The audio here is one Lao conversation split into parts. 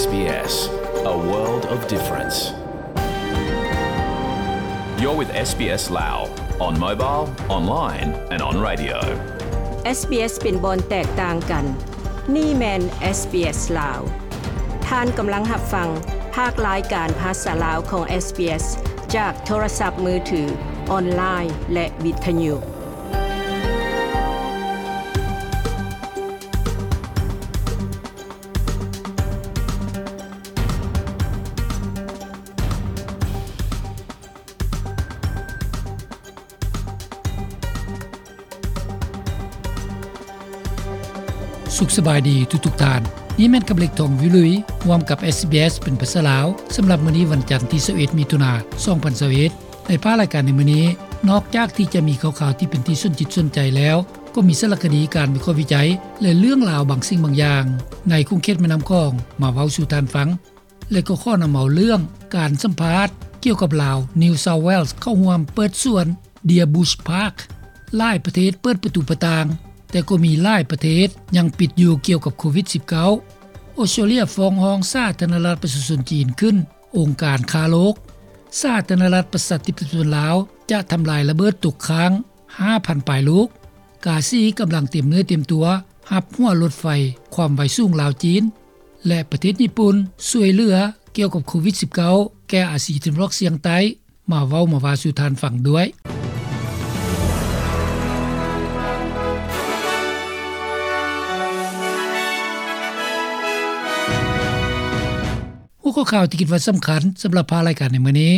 SBS, a world of difference. You're with SBS Lao on mobile, online and on radio. SBS ເປັນບ່ອນແຕກຕ່າງກັນ. ນີ້ແມ່ນ SBS ລາວ. ທ່ານກຳລັງຮັບຟັງພາກລາຍການພາສາລາວຂອງ SBS ຈາກໂທລະສັບມືຖື, ອອນລາຍ ແລະ ວິທະຍຸ. ສຸກສະບາຍດີທຸກໆທ່ານ. ນີ້ແມ່ນຄຳເລັກ ທອງວິລຸຍ ຮ່ວມກັບ SBS ເປັນພາສາລາວ ສຳລັບມື້ນີ້ວັນຈັນທີຊາວເອັດ ມິຖຸນາ ສອງພັນຊາວເອັດ. ໃນພາກລາຍການໃນມື້ນີ້, ນອກຈາກທີ່ຈະມີຂ່າວໆທີ່ເປັນທີ່ສົນຈິດສົນໃຈແລ້ວ, ກໍມີສາລະຄະດີ, ການວິເຄາະວິໄຈ ແລະ ເລື່ອງລາວບາງສິ່ງບາງຢ່າງ ໃນຂົງເຂດແມ່ນ້ຳຂອງ ມາເວົ້າສູ່ທ່ານຟັງ. ແລະ ກໍຂໍນຳເອົາເລື່ອງການສຳພາດກ່ຽວກັບລາວ New South Wales ເຂົ້າຮ່ວມເປີດສວນ Deer Bush Park. ຫຼາຍປະເທດເປີດປະຕູປະຕ່າງ, ແຕ່ກໍມີຫຼາຍປະເທດຍັງປິດຢູ່ກ່ຽວກັບໂຄວິດສິບເກົ້າ. ອອສເຕຣເລຍຟ້ອງຮ້ອງສາທາລະນະລັດປະຊາຊົນຈີນຂຶ້ນ, ອົງການຄ້າໂລກ. ສາທາລະນະລັດປະຊາທິປະໄຕລາວຈະທຳລາຍລະເບີດຕົກຄ້າງ ຫ້າພັນປາຍລູກ. ກາຊີກຳລັງຕຽມເນື້ອຕຽມຕົວຮັບຫົວລົດໄຟຄວາມໄວສູງລາວ-ຈີນ ແລະ ປະເທດຍີ່ປຸ່ນຊ່ວຍເຫຼືອກ່ຽວກັບໂຄວິດສິບເກົ້າ ແກ່ອາຊີຕາເວັນອອກສຽງໃຕ້. ມາເວົ້າມາວ່າສູ່ທ່ານຟັງດ້ວຍ. ຫົວຂໍ້ຂ່າວທີ່ຄິດວ່າສຳຄັນສຳລັບພາກລາຍການໃນມື້ນີ້,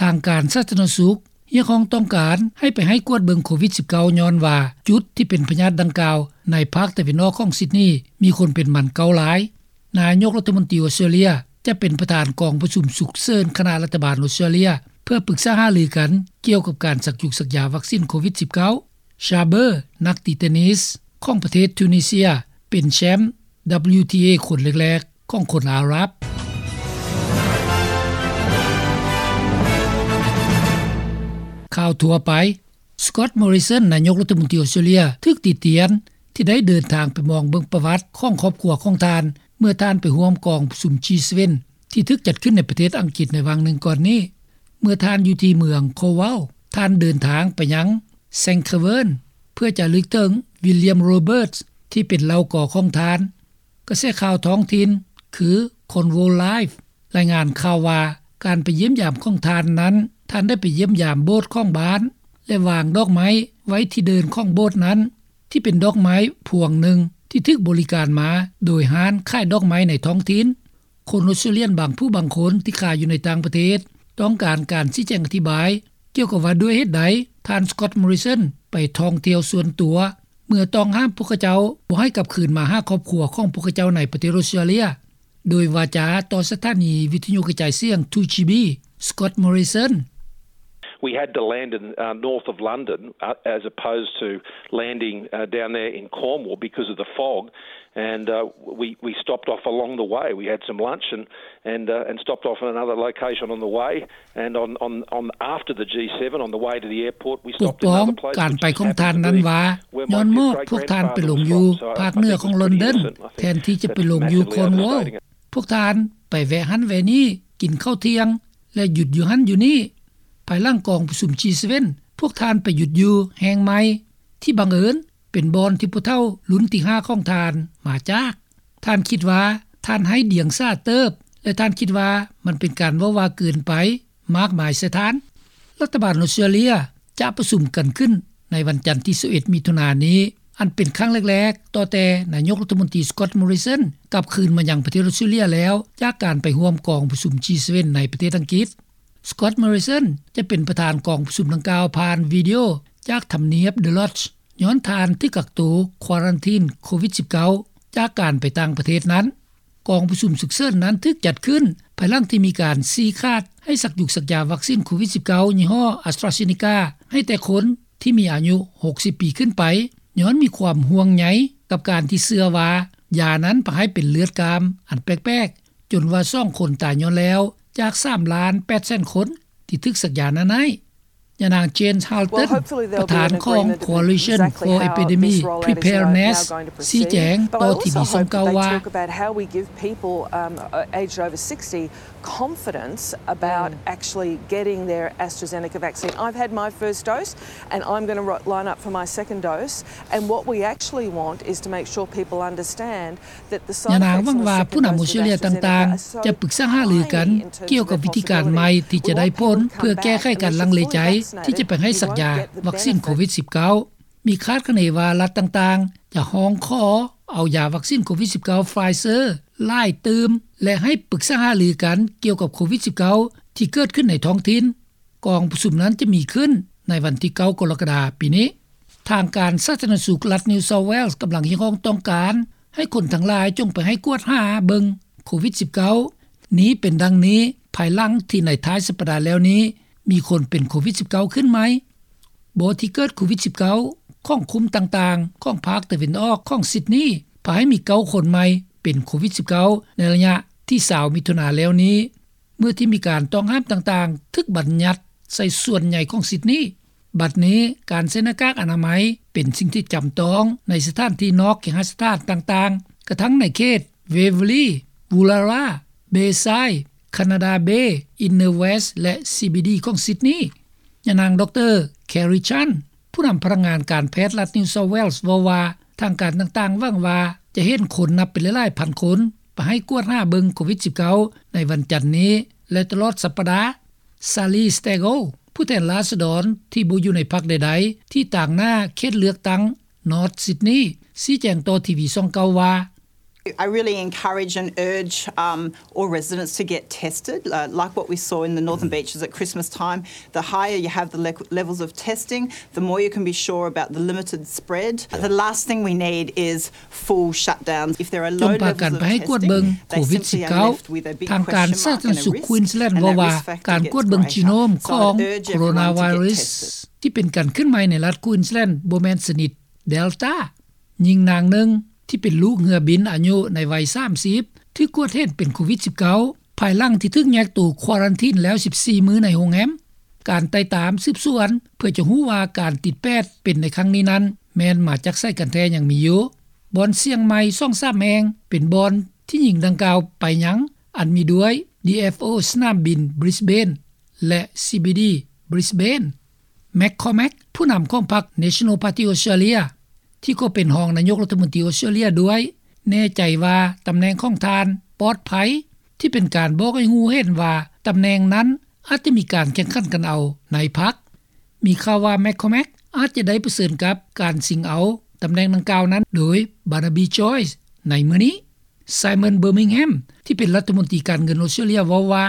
ທາງການສາທາລະນະສຸກຮຽກຮ້ອງຕ້ອງການໃຫ້ໄປໃຫ້ກວດເບິ່ງໂຄວິດສິບເກົ້າ ຍ້ອນວ່າຈຸດທີ່ເປັນພະຍາດດັ່ງກ່າວໃນພາກຕາເວັນອອກຂອງຊິດນີ ມີຄົນເປັນໝັນເກົ້າລາຍ. ນາຍົກລັດຖະມົນຕີອອສເຕຣເລຍຈະເປັນປະທານກອງປະຊຸມສຸກເສີນຄະນະລັດຖະບານອອສເຕຣເລຍ ເພື່ອປຶກສາຫາລືກັນກ່ຽວກັບການສັກຢຸກສັກຢາວັກຊີນໂຄວິດສິບເກົ້າ. ຊາເບີ ນັກຕີເຕນນິສຂອງປະເທດທູນີເຊຍ ເປັນແຊ້ມ WTA ຄົນແລກໆຂອງຄົນອາຣັບ. ຂ່າວທົ່ວໄປ. ສະກອດ ມໍຣິສັນ ນາຍົກລັດຖະມົນຕີອອສເຕຣເລຍ ຖືກຕິຕຽນທີ່ໄດ້ເດີນທາງໄປມອງເບິ່ງປະຫວັດຂອງຄອບຄົວຂອງທ່ານ ເມື່ອທ່ານໄປຮ່ວມກອງປະຊຸມ ຈີເຊເວັນ ທີ່ຖືກຈັດຂຶ້ນໃນປະເທດອັງກິດໃນຫວ່າງໜຶ່ງກ່ອນນີ້. ເມື່ອທ່ານຢູ່ທີ່ເມືອງໂຄວາວ ທ່ານເດີນທາງໄປຍັງ ແຊງຄະເວີນ ເພື່ອຈະລະນຶກເຖິງ ວິລຽມ ໂຣເບີດ ທີ່ເປັນເຫຼົ່າກໍຂອງທ່ານ. ກະແສຂ່າວທ້ອງຖິ່ນ ຄື ຄອນໂວລາຍຟ໌ ລາຍງານຂ່າວວ່າ ການໄປຢ້ຽມຢາມຂອງທ່ານນັ້ນ, ທ່ານໄດ້ໄປຢ້ຽມຢາມໂບດຂອງບ້ານ ແລະ ວາງດອກໄມ້ໄວ້ທີ່ເດີ່ນຂອງໂບດນັ້ນ, ທີ່ເປັນດອກໄມ້ພວງໜຶ່ງທີ່ຖືກບໍລິການມາໂດຍຮ້ານຂາຍດອກໄມ້ໃນທ້ອງຖິ່ນ. ຄົນອອສເຕຣເລຍບາງຜູ້ບາງຄົນທີ່ຂາຍຢູ່ໃນຕ່າງປະເທດ ຕ້ອງການການຊີ້ແຈງອະທິບາຍ ກ່ຽວກັບວ່າດ້ວຍເຫດໃດ ທ່ານ ສະກອດ ມໍຣິສັນ ໄປທ່ອງທ່ຽວສ່ວນຕົວ ເມື່ອຕ້ອງຫ້າມພວກເຂົາເຈົ້າບໍ່ໃຫ້ກັບຄືນມາຫາຄອບຄົວຂອງພວກເຂົາເຈົ້າໃນປະເທດອອສເຕຣເລຍ. ໂດຍວາຈາຕໍ່ສະຖານີວິທະຍຸກະຈາຍສຽງ ທູຈີບີ ສະກອດ ມໍຣິສັນ. We had to land in, uh, north of London, uh, as opposed to landing, uh, down there in Cornwall because of the fog. And, uh, we, we stopped off along the way. We had some lunch and, and, uh, and stopped off in another location on the way. And on, on, on after the G seven, on the way to the airport, we stopped in another place, which just happened to be where my great grandfather was born. ປົກປ້ອງການໄປຂອງທ່ານນັ້ນວ່າ ຍ້ອນມອບພວກທ່ານໄປລົງຢູ່ພາກເໜືອຂອງລອນດອນ ແທນທີ່ຈະໄປລົງຢູ່ຄອນວອລ. ພວກທ່ານໄປແວະຫັ້ນແວະນີ້, ກິນເຂົ້າທ່ຽງ ແລະ ຢຸດຢູ່ຫັ້ນຢູ່ນີ້. ພາຍຫຼັງກອງປະຊຸມ ຈີເຊເວັນ ພວກທ່ານໄປຢຸດຢູ່ແຫ່ງໃໝ່ ທີ່ບັງເອີນເປັນບ່ອນທີ່ຜູ້ເຖົ້າລຸ້ນທີຫ້າຂອງທ່ານມາຈາກ. ທ່ານຄິດວ່າທ່ານໄຮ້ດຽງສາເຕີບ ແລະ ທ່ານຄິດວ່າມັນເປັນການເວົ້າວ່າເກີນໄປ ມາກມາຍໃສ່ທ່ານ. ລັດຖະບານອອສເຕຣເລຍຈະປະຊຸມກັນຂຶ້ນໃນວັນຈັນທີຊາວເອັດ ມິຖຸນານີ້, ອັນເປັນຄັ້ງແລກໆ ຕໍ່ແຕ່ນາຍົກລັດຖະມົນຕີ ສະກອດ ມໍຣິສັນ ກັບຄືນມາຍັງປະເທດອອສເຕຣເລຍແລ້ວ ຈາກການໄປຮ່ວມກອງປະຊຸມ ຈີເຊເວັນ ໃນປະເທດອັງກິດ. ສະກອດ ມໍຣິສັນ ຈະເປັນປະທານກອງປະຊຸມດັ່ງກ່າວຜ່ານວິດີໂອຈາກທຳນຽບ The Lodge ຍ້ອນທ່ານຖືກກັກໂຕ ຄວາຣັນທີນ ໂຄວິດສິບເກົ້າ ຈາກການໄປຕ່າງປະເທດນັ້ນ. ກອງປະຊຸມສຸກເສີນນັ້ນຖືກຈັດຂຶ້ນ ພາຍຫຼັງທີ່ມີການຊີ້ຂາດໃຫ້ສັກຢຸກສັກຢາວັກຊີນໂຄວິດສິບເກົ້າ ຍີ່ຫໍ້ AstraZeneca ໃຫ້ແຕ່ຄົນທີ່ມີອາຍຸຫົກສິບປີຂຶ້ນໄປ, ຍ້ອນມີຄວາມຫ່ວງໃຍກັບການທີ່ເຊື່ອວ່າຢານັ້ນພາໃຫ້ເປັນເລືອດກ້າມອັນແປກໆ, ຈົນວ່າສອງຄົນຕາຍຍ້ອນແລ້ວ ຈາກສາມລ້ານແປດແສນຄົນທີ່ຖືກສັກຢານັ້ນໃຫ້. ເ ຍານາງ Jane Halton ປະທານຂອງ Coalition for Epidemic Preparedness ຊີ້ແຈງຕໍ່ທີວີສອງເກົ້າວ່າ confidence about actually getting their AstraZeneca vaccine. I've had my first dose and I'm going to line up for my second dose. And what we actually want is to make sure people understand that the side effects of the second dose of AstraZeneca are so high in terms of their possibility. ຍານາງຫວັງວ່າຜູ້ນຳອົດສະຕຣາເລຍຕ່າງໆຈະປຶກສາຫາລືກັນກ່ຽວກັບວິທີການໃໝ່ທີ່ຈະໄດ້ພົ້ນ ເພື່ອແກ້ໄຂການລັງເລໃຈທີ່ຈະໄປໃຫ້ສັກຢາວັກຊິນໂຄວິດສິບເກົ້າ. ມີຄາດຄະເນວ່າລັດຕ່າງໆຈະຮ້ອງຂໍເອົາຢາວັກຊິນໂຄວິດສິບເກົ້າ Pfizer ຫຼາຍຕື່ມ ແລະ ໃຫ້ປຶກສາຫາລືກັນກ່ຽວກັບໂຄວິດສິບເກົ້າ ທີ່ເກີດຂຶ້ນໃນທ້ອງຖິ່ນ. ກອງປະຊຸມນັ້ນຈະມີຂຶ້ນໃນວັນທີເກົ້າ ກໍລະກະດາປີນີ້. ທາງການສາທາລະນະສຸກລັດ New South Wales ກຳລັງຮຽກຮ້ອງຕ້ອງການໃຫ້ຄົນທັງຫຼາຍຈົ່ງໄປໃຫ້ກວດຫາເບິ່ງໂຄວິດສິບເກົ້າ. ນີ້ເປັນດັ່ງນີ້ ພາຍຫຼັງທີ່ໃນທ້າຍສັບປະດາແລ້ວນີ້ ມີຄົນເປັນໂຄວິດສິບເກົ້າຂຶ້ນໃໝ່. ບໍ່ທີ່ເກີດໂຄວິດສິບເກົ້າຂອງຄຸ້ມຕ່າງໆຂອງພາກຕາເວັນອອກຂອງຊິດນີ ພາໃຫ້ມີເກົ້າຄົນໃໝ່ເປັນໂຄວິດສິບເກົ້າໃນໄລຍະທີຊາວມິຖຸນາແລ້ວນີ້ ເມື່ອທີ່ມີການຕ້ອງຫ້າມຕ່າງໆຖືກບັນຍັດໃສ່ສ່ວນໃຫຍ່ຂອງຊິດນີ. ບັດນີ້ການໃສ່ໜ້າກາກອະນາໄມເປັນສິ່ງທີ່ຈຳຕ້ອງໃນສະຖານທີ່ນອກເຄຫະສະຖານຕ່າງໆ ກະທັ່ງໃນເຂດ Waverley, Woollahra, Bayside, Canada Bay, Inner West ແລະ CBD ຂອງຊິດນີ. ຍານາງ ດຣ Kerry Chant ຜູ້ນຳພະນັກງານການແພດລັດ New South Wales ເວົ້າວ່າ ທາງການຕ່າງໆຫວັງວ່າຈະເຫັນຄົນນັບເປັນຫຼາຍໆພັນຄົນໄປໃຫ້ກວດຫາເບິ່ງໂຄວິດສິບເກົ້າໃນວັນຈັນນີ້ ແລະ ຕະຫຼອດສັບປະດາ. Sally Stagel ຜູ້ແທນລາຊະດອນທີ່ບໍ່ຢູ່ໃນພັກໃດໆ ທີ່ຕາງໜ້າເຂດເລືອກຕັ້ງ North Sydney ຊີ້ແຈງຕໍ່ທີວີສອງເກົ້າວ່າ I really encourage and urge, um, all residents to get tested, uh, like what we saw in the Northern Beaches at Christmas time. The higher you have the le-, levels of testing, the more you can be sure about the limited spread. The last thing we need is full shutdowns. If there are low levels of testing, they simply are left with a big question mark and a risk, and that risk factor gets greater. So I'd urge everyone to get tested. ທີ່ເປັນການຂຶ້ນໃໝ່ໃນລັດ Queensland ບໍ່ແມ່ນຊະນິດ Delta. ຍິງນາງໜຶ່ງທີ່ເປັນລູກເຮືອບິນອາຍຸໃນໄວສາມສິບ ຖືກກວດເຫັນເປັນໂຄວິດສິບເກົ້າ ພາຍຫຼັງທີ່ຖືກແຍກໂຕຄວາຣັນທີນແລ້ວສິບສີ່ມື້ໃນໂຮງແຮມ. ການໄຕ່ຕາມສືບສວນເພື່ອຈະຮູ້ວ່າການຕິດແປດເປັນໃນຄັ້ງນີ້ນັ້ນ ແມ່ນມາຈາກໃສກັນແທ້ຍັງມີຢູ່. ບ່ອນສ່ຽງໃໝ່ສອງສາມແຫ່ງເປັນບ່ອນທີ່ຍິງດັ່ງກ່າວໄປຍັງ ອັນມີດ້ວຍ DFO ສະໜາມບິນ Brisbane ແລະ CBD Brisbane. McCormack ຜູ້ນຳຂອງພັກ National Party Australia ທີ່ກໍເປັນຮອງນາຍົກລັດຖະມົນຕີອອສເຕຣເລັຽດ້ວຍ ແນ່ໃຈວ່າຕຳແໜ່ງຂອງທ່ານປອດໄພ ທີ່ເປັນການບອກໃຫ້ຮູ້ເຫັນວ່າຕຳແໜ່ງນັ້ນອາດຈະມີການແຂ່ງຂັນກັນເອົາໃນພັກ. ມີຂ່າວວ່າ McCormack ອາດຈະໄດ້ປະເຊີນກັບການຊິງເອົາຕຳແໜ່ງດັ່ງກ່າວນັ້ນໂດຍ Barnaby Joyce ໃນມື້ນີ້. Simon Birmingham ທີ່ເປັນລັດຖະມົນຕີການເງິນອອສເຕຣເລັຽເວົ້າວ່າ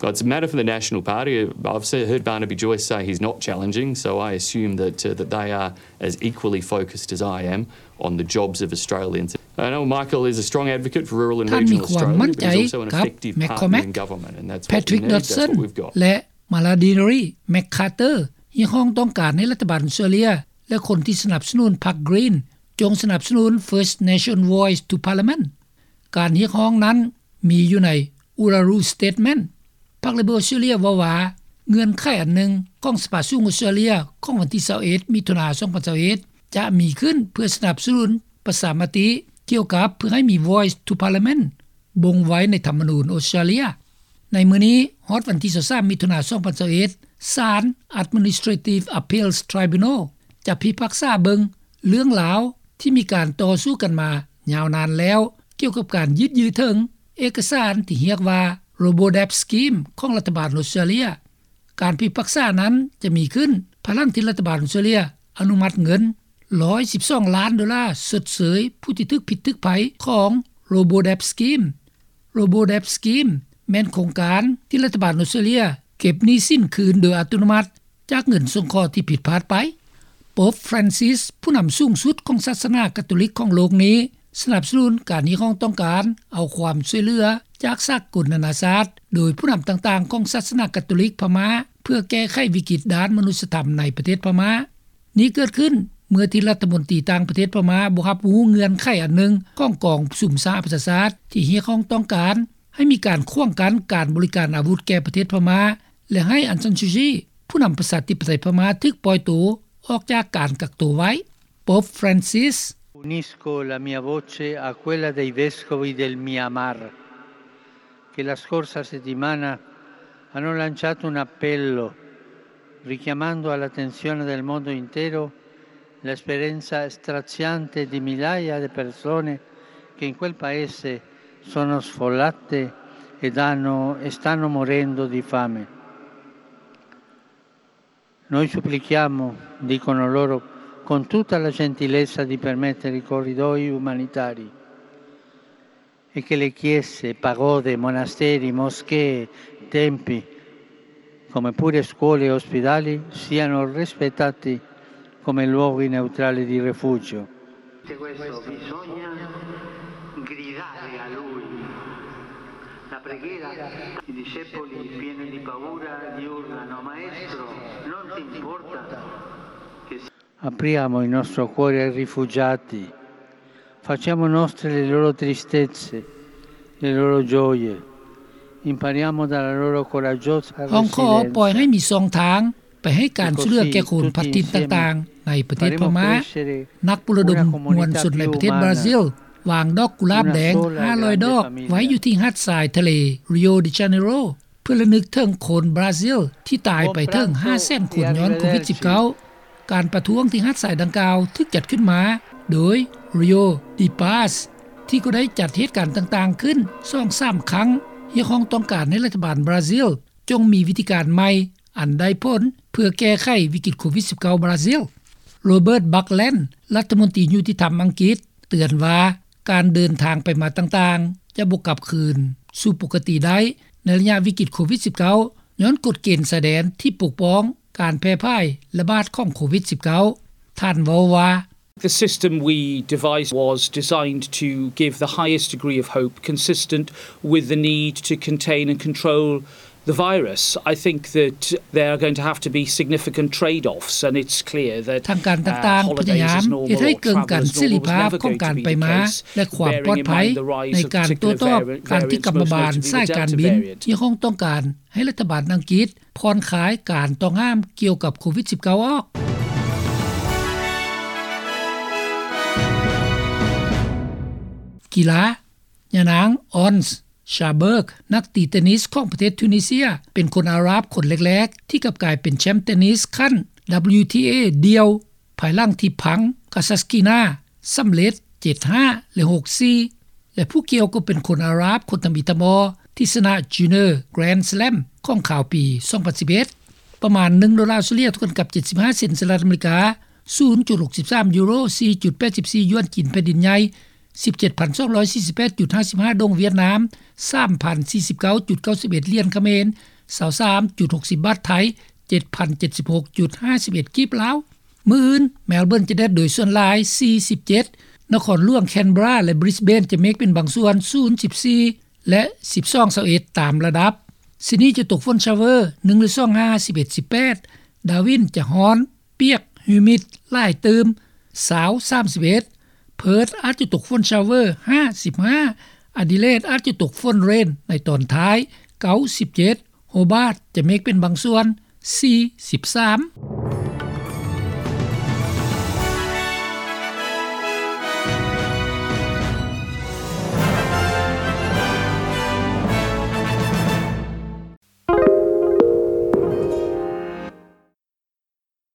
Well, it's a matter for the National Party. I've se-, heard Barnaby Joyce say he's not challenging, so I assume that, uh, that they are as equally focused as I am on the jobs of Australians. I know Michael is a strong advocate for rural and regional Australia, but he's also an effective partner in government, and that's what we need, that's what we've got. ແລະ Mallory McCarter ຮຽກຮ້ອງຕ້ອງການໃຫ້ລັດຖະບານອອສເຕຣເລັຽ ແລະ ຄົນທີ່ສະໜັບສະໜູນພັກ Green ຈົ່ງສະໜັບສະໜູນ First Nation Voice to Parliament. ການຮຽກຮ້ອງນັ້ນມີຢູ່ໃນ Uluru Statement. ພັກ Labor ອອສເຕຣເລັຽເວົ້າວ່າ ເງື່ອນໄຂອັນໜຶ່ງຂອງສະພາສູງອອສເຕຣເລັຽຂອງວັນທີຊາວເອັດ ມິຖຸນາ ສອງພັນຊາວເອັດ ຈະມີຂຶ້ນເພື່ອສະໜັບສະໜູນປະຊາມະຕິກ່ຽວກັບເພື່ອໃຫ້ມີ Voice to Parliament ບົ່ງໄວ້ໃນທຳມະນູນອອສເຕຣເລັຽ. ໃນມື້ນີ້ຮອດວັນທີຊາວສາມ ມິຖຸນາ ສອງພັນຊາວເອັດ ສານ Administrative Appeals Tribunal ຈະພິພາກສາເບິ່ງເລື່ອງລາວທີ່ມີການຕໍ່ສູ້ກັນມາຍາວນານແລ້ວ ກ່ຽວກັບການຍືດເຖິງເອກະສານທີ່ຮຽກວ່າ Robodebt Scheme ຂອງລັດຖະບານອອສເຕຣເລັຽ. ການພິພາກສານັ້ນຈະມີຂຶ້ນພາຍຫຼັງທີ່ລັດຖະບານອອສເຕຣເລັຽອະນຸມັດເງິນ ໜຶ່ງຮ້ອຍສິບສອງລ້ານໂດລາຊົດເຊີຍຜູ້ທີ່ຖືກພິດຖືກໄພຂອງ Robodebt Scheme. Robodebt Scheme ແມ່ນໂຄງການທີ່ລັດຖະບານອອສເຕຣເລັຽເກັບໜີ້ສິນຄືນໂດຍອັດຕະໂນມັດຈາກເງິນສົງເຄາະທີ່ຜິດພາດໄປ. ໂປບ Francis ຜູ້ນຳສູງສຸດຂອງສາສະໜາກາໂຕລິກຂອງໂລກນີ້ ສະໜັບສະໜູນການຮຽກຮ້ອງຕ້ອງການເອົາຄວາມຊ່ວຍເຫຼືອຈາກສາກົນນານາຊາດ ໂດຍຜູ້ນຳຕ່າງໆຂອງສາສະໜາກາໂຕລິກພະມ້າ ເພື່ອແກ້ໄຂວິກິດດ້ານມະນຸດສະທຳໃນປະເທດພະມ້າ. ນີ້ເກີດຂຶ້ນເມື່ອທີ່ລັດຖະມົນຕີຕ່າງປະເທດພະມ້າບໍ່ຮັບຮູ້ເງື່ອນໄຂອັນໜຶ່ງຂອງກອງປະຊຸມສະຫະປະຊາຊາດ ທີ່ຮຽກຮ້ອງຕ້ອງການໃຫ້ມີການຂວາງກັ້ນການບໍລິການອາວຸດແກ່ປະເທດພະມ້າ ແລະ ໃຫ້ອັງຊານຊູຈີ ຜູ້ນຳປະຊາທິປະໄຕພະມ້າຖືກປ່ອຍໂຕອອກຈາກການກັກໂຕໄວ້. ໂປບຟຣານຊິສ Unisco la mia voce a quella dei vescovi del Myanmar, che la scorsa settimana hanno lanciato un appello richiamando all'attenzione del mondo intero l'esperienza straziante di migliaia di persone che in quel paese sono sfollate ed hanno, e stanno morendo di fame. Noi supplichiamo, dicono loro, con tutta la gentilezza di permettere i corridoi umanitari e che le chiese, pagode, monasteri, moschee, tempi, come pure scuole e ospedali, siano rispettati come luoghi neutrali di rifugio. Questo bisogna gridare a lui. La preghiera, i discepoli pieni di paura gli urlano: "Maestro, non ti importa che si-" Apriamo il nostro cuore ai rifugiati, facciamo nostre le loro tristezze, le loro gioie, impariamo dalla loro coraggiosa resilienza. ຮ້ອງຂໍປ່ອຍໃຫ້ມີຊ່ອງທາງ ໄປໃຫ້ການຊ່ວຍເຫຼືອແກ່ຄົນພັດຖິ່ນຕ່າງໆໃນປະເທດພະມ້າ. ນັກປຸລະດົມມວນຊົນໃນປະເທດບຣາຊິລ ວາງດອກກຸຫຼາບແດງຫ້າຮ້ອຍດອກໄວ້ຢູ່ທີ່ຫາດຊາຍທະເລ Rio de Janeiro ເພື່ອລະນຶກເຖິງຄົນບຣາຊິລທີ່ຕາຍໄປເຖິງຫ້າແສນຄົນຍ້ອນໂຄວິດສິບເກົ້າ. ການປະທ້ວງທີ່ຫາດຊາຍດັ່ງກ່າວຖືກຈັດຂຶ້ນມາໂດຍ Rio de Paz ທີ່ກໍໄດ້ຈັດເຫດການຕ່າງໆຂຶ້ນສອງສາມຄັ້ງ, ຮຽກຮ້ອງຕ້ອງການໃຫ້ລັດຖະບານບຣາຊິລຈົ່ງມີວິທີການໃໝ່ ອັນໄດ້ຜົນເພື່ອແກ້ໄຂວິກິດໂຄວິດສິບເກົ້າບຣາຊິລ. ໂຣເບີດ ບັກແລນ ລັດຖະມົນຕີຍຸຕິທຳອັງກິດ ເຕືອນວ່າ ການເດີນທາງໄປມາຕ່າງໆ ຈະບໍ່ກັບຄືນສູ່ປົກກະຕິໄດ້ໃນໄລຍະວິກິດໂຄວິດສິບເກົ້າ ຍ້ອນກົດເກນຊາຍແດນທີ່ປົກປ້ອງການແຜ່ຜາຍລະບາດຂອງໂຄວິດສິບເກົ້າ. ທ່ານເວົ້າວ່າ The system we devised was designed to give the highest degree of hope consistent with the need to contain and control the virus. I think that there are going to have to be significant trade-offs, and it's clear that ທາງການຕ່າງໆພະຍາຍາມເຮັດໃຫ້ເກີນກັນເສລີພາບຂອງການໄປມາ ແລະ ຄວາມປອດໄພໃນການໂຕ້ຕອບການທີ່ກຳມະບານສາຍການບິນຮຽກຮ້ອງຕ້ອງການໃຫ້ລັດຖະບານອັງກິດຜ່ອນຄາຍການຕ້ອງຫ້າມກ່ຽວກັບໂຄວິດສິບເກົ້າອອກ. ກິລາ ຍານາງ ອອນ ຊາເບີກ ນັກຕີເຕນນິສຂອງປະເທດທູນີເຊຍ ເປັນຄົນອາຣັບຄົນແລກໆທີ່ກັບກາຍເປັນແຊ້ມເຕນນິສຂັ້ນ WTA ດ່ຽວ ພາຍຫຼັງທີ່ພັງ ກາຊາສກີນາ ສຳເລັດ ເຈັດຫ້າ ແລະ ຫົກສີ່ ແລະ ຜູ້ກ່ຽວກໍເປັນຄົນອາຣັບຄົນທຳອິດທຳອໍທີ່ຊະນະ Junior Grand Slam ຂອງຄາວປີ ສອງພັນສິບເອັດ. ປະມານໜຶ່ງໂດລາອົດສະຕຣາເລຍ ເທົ່າກັນກັບ ເຈັດສິບຫ້າເຊັນສະຫະລັດອາເມລິກາ, ສູນຈຸດຫົກສິບສາມຢູໂຣ, ສີ່ຈຸດແປດສິບສີ່ຢວນຈີນແຜ່ນດິນໃຫຍ່, ສິບເຈັດພັນສອງຮ້ອຍສີ່ສິບແປດຈຸດຫ້າສິບຫ້າດົງຫວຽດນາມ, ສາມພັນສີ່ສິບເກົ້າຈຸດເກົ້າສິບເອັດຫຼຽນຂະເໝນ, ຊາວສາມຈຸດຫົກສິບບາດໄທ, ເຈັດພັນເຈັດສິບຫົກຈຸດຫ້າສິບເອັດກີບລາວ. ມື້ອື່ນ ແມລເບີນຈະແດດໂດຍສ່ວນຫຼາຍ ສີ່ສິບເຈັດ, ນະຄອນຫຼວງແຄນເບຣາ ແລະ ບຣິສເບນ ຈະເມກເປັນບາງສ່ວນ ສູນສິບສີ່ ແລະ ສິບສອງ ຊາວເອັດ ຕາມລະດັບ. ຊິດນີຈະຕົກຝົນຊາວເວີ ໜຶ່ງ ຫຼື ສອງ ຫ້າ ສິບເອັດ ສິບແປດ, ດາວິນຈະຮ້ອນ ປຽກ ຮີມິດ ຫຼາຍຕື່ມ ຊາວ ສາມສິບເອັດ, ເພີດອາດຈະຕົກຝົນຊາວເວີ ຫ້າ ສິບຫ້າ, ອາດີເລດອາດຈະຕົກຝົນເຣນໃນຕອນທ້າຍ ເກົ້າ ສິບເຈັດ, ໂຮບາດຈະເມກເປັນບາງສ່ວນ ສີ່ ສິບສາມ.